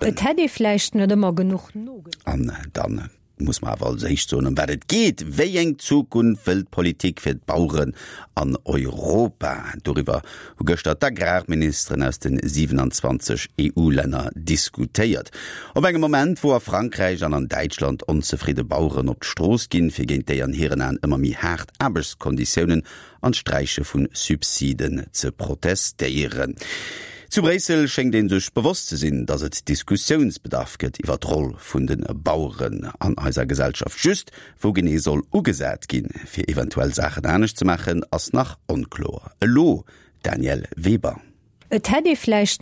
Et hätt ee vläicht net ëmmer genuch nogeduecht. An dann muss mer awer als éischt soen, ëm wat et geet. Wéi eng Zukunft wëll d'Politik fir d'Baueren an Europa? Doriwwer hu gëschter d'Agrarministeren aus de 27 EU-Länner diskutéiert. Op engem Moment, wou a Frankräich an an Däitschland onzefridde Baueren op d'Strooss ginn, fir géint déi an hiren Aen ëmmer méi haart Aarbechtskonditiounen an d'Sträiche vu Subsiden ze protestéieren. Zu Bréissel schéngt ee sech bewosst ze sinn, datt et Diskussiounsbedarf gëtt iwwer d'Roll vun de Baueren an eiser Gesellschaft. Just wou genee soll ugesat ginn, fir eventuell Saachen anescht ze maachen, ass nach onkloer. Elo Danièle Weber. Et hätt ee vläicht.